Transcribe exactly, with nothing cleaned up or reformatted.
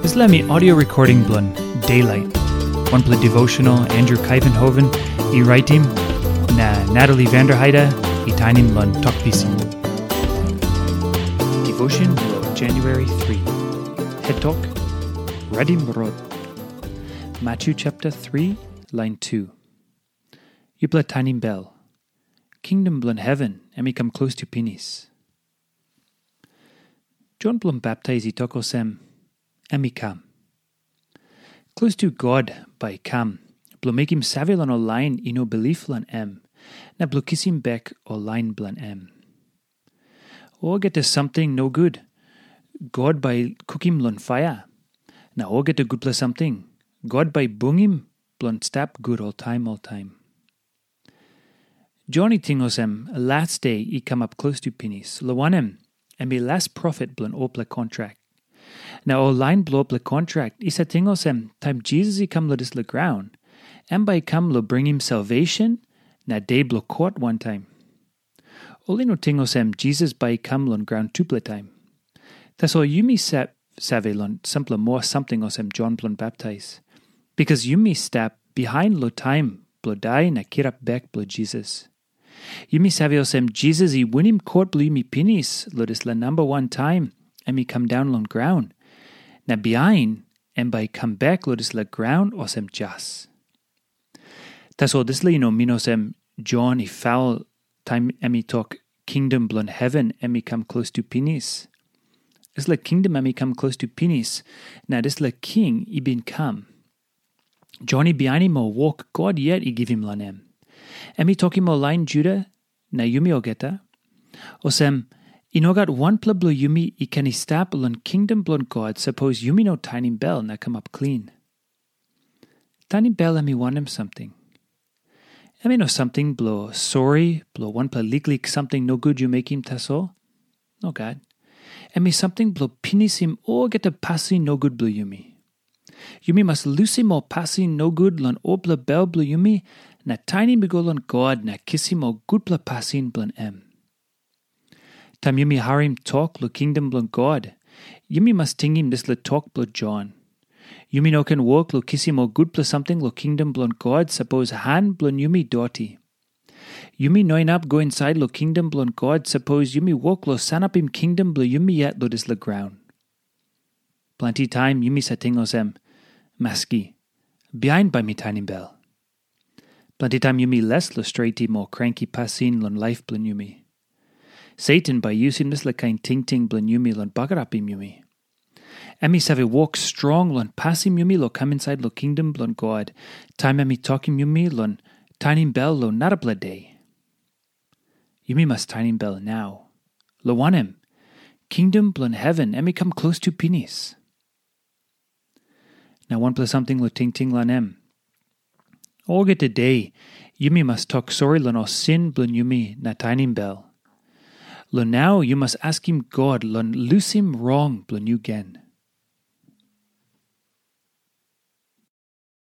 Dispela mi audio recording bilong Daylight. Wanpela devotional Andrew Kaivenhoven i raitim, na Natalie Vanderheide i tainim long tok pisin. Devotion bilong January three. Het tok, Redim Rot. Matthew chapter three, line two. Yupela tainim bel. Kingdom bilong heven em i kam klostu pinis. Jon bilong baptais i tok olsem, em i kam. Klostu God bai i kam, bilong mekim save long ol lain i no bilip long em, na bilong kisim bek ol lain bilong em. Olgeta samting nogut, God bai i kukim long paia, na olgeta gutpela samting, God bai i bungim bilong stap gut oltaim oltaim. Jon i ting olsem, las de i kamap klostu pinis, long wanem, em i las profet bilong olpela kontrak. Na ol lain bilong olpela kontrak i save ting olsem, taim Jisas i kam long dispela graun, em bai i kam long bringim salvesen na de bilong kot wantaim. Ol i no ting olsem, Jisas bai i kam long graun tupela taim. Tasol yumi sa- save long sampela moa samting olsem Jon bilong baptais, bikas yumi stap bihain long taim bilong dai na kirap bek bilong Jisas. Yumi save olsem, Jisas i winim kot bilong yumi pinis long dispela namba wan taim em i kam daun long graun, na bihain em bai i kam bek long dispela graun olsem jas. Tasol dispela i no min olsem Jon i faul taim em i tok, kingdom bilong heven em i kam klostu pinis. Dispela kingdom em i kam klostu pinis, na dispela king i bin kam. Jon i bihainim ol wok God yet i givim long em. Em i tokim ol lain Juda na yumi olgeta, olsem, i no gat wanpela bilong yumi i ken i stap long kingdom bilong God sapos yumi no tainim bel na kamap klin. Tainim bel em i wanem samting? Em i no samting bilong sori bilong wanpela liklik samting nogut yu mekim tasol. Nogat. Em i samting bilong pinisim olgeta pasin nogut bilong yumi. Yumi mas lusim ol pasin nogut long olpela bel bilong yumi, na tainim i go long God na kisim ol gutpela pasin bilong em. Taim yumi harim tok long kingdom bilong God, yumi mas tingim dispela tok bilong Jon. Yumi no ken wok long kisim ol gutpela samting long kingdom bilong God sapos han bilong yumi doti. Yumi no inap go insait long kingdom bilong God sapos yumi wok long sanapim kingdom bilong yumi yet long dispela graun. Planti taim yumi save ting olsem, maski, bihain bai mi tainim bel. Planti taim yumi les long stretim ol kranki pasin long laip bilong yumi. Satan bai yusim dispela kain tingting bilong yumi long bagarapim yumi. Em i save wok strong long pasim yumi long kam insait long kingdom bilong God, taim em i tokim yumi long tainim bel long narapela de. Yumi mas tainim bel nau. Long wanem, kingdom bilong heven em i kam klostu pinis. Na wanpela samting long tingting long em. Olgeta de, yumi mas tok sori long ol sin bilong yumi na tainim bel. Long nau yu mas askim God long lusim rong bilong yu gen.